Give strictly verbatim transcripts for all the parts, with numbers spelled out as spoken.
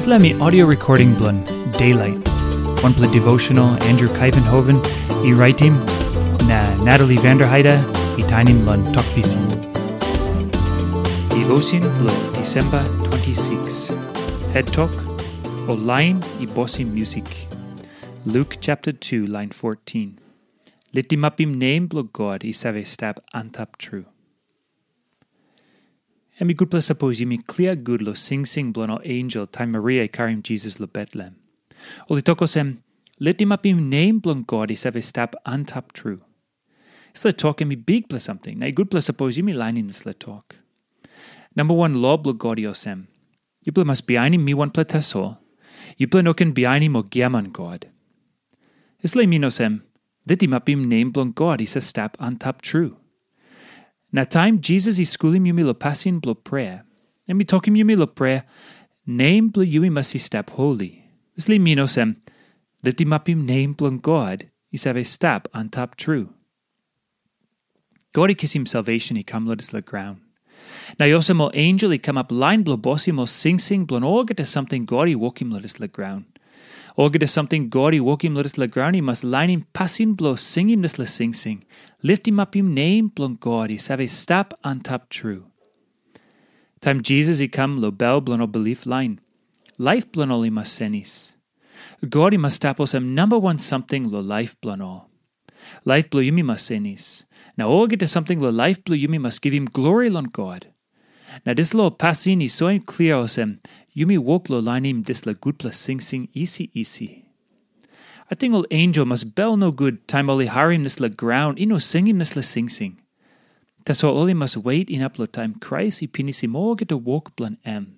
Dispela mi audio recording bilong Daylight, wanpela devotional Andrew Kaivenhoven i raitim, na Natalie Vanderheide i tainim long Tok Pisin. Devotion bilong Disemba twenty-six. Het tok, ol lain i bosim musik. Luk chapter two, line fourteen. Litimapim nem bilong God i save stap antap tru. Em i gutpela sapos yumi klia gut long singsing bilong ol ensel taim Maria i karim Jisas long Betlehem. Ol i tok olsem, litimapim nem bilong God i save stap antap tru. Dispela tok em i bikpela samting, na i gutpela sapos yumi lainim dispela tok. Namba wan lo bilong God i olsem, yupela mas bihainim mi wanpela tasol. Yupela no ken bihainim ol giaman god. Dispela i min olsem, litimapim nem bilong God i save stap antap tru. Na taim Jisas i skulim yumi long pasin bilong prea, em i tokim yumi long prea, nem bilong yu i mas i stap holi. Dispela i min olsem, litimapim nem bilong God i save stap antap tru. God i kisim salvation i kam long dispela graun. Na i olsem ol ensel i kamap lain bilong bosim ol singsing bilong olgeta samting God i wokim long dispela graun. Olgeta samting God i wokim long dispela graun i mas lainim pasin bilong singim dispela singsing, litimapim nem bilong God i save stap antap tru. Taim Jisas i kam long bel bilong ol bilip lain, laip bilong ol i mas senis. God i mas stap olsem namba wan samting long laip bilong ol. Laip bilong yumi mas senis, na olgeta samting long laip bilong yumi mas givim glori long God. Na dispela pasin i soim klia olsem, yumi wok long lainim dispela gutpela singsing isi isi. Ating ol ensel mas bel nogut taim ol i harim dispela graun i no singim dispela singsing. Tasol ol i mas wet inap long taim Krais i pinisim olgeta wok bilong em.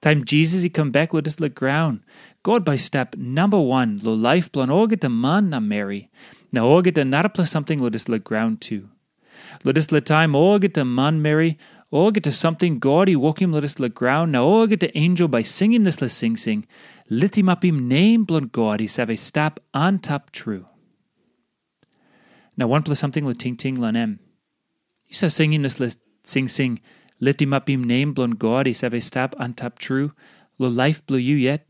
Taim Jisas i kam bek long dispela graun, God bai i stap namba wan long laip bilong olgeta man na meri, na olgeta narapela samting long dispela graun tu. Long dispela taim olgeta manmeri, olgeta samting God i wokim long dispela graun, na olgeta ensel bai i singim dispela singsing, litimapim nem bilong God i save stap antap tru. Na wanpela samting long tingting long em. Yu save singim dispela singsing, litimapim nem bilong God i save stap antap tru, long laip bilong yu yet?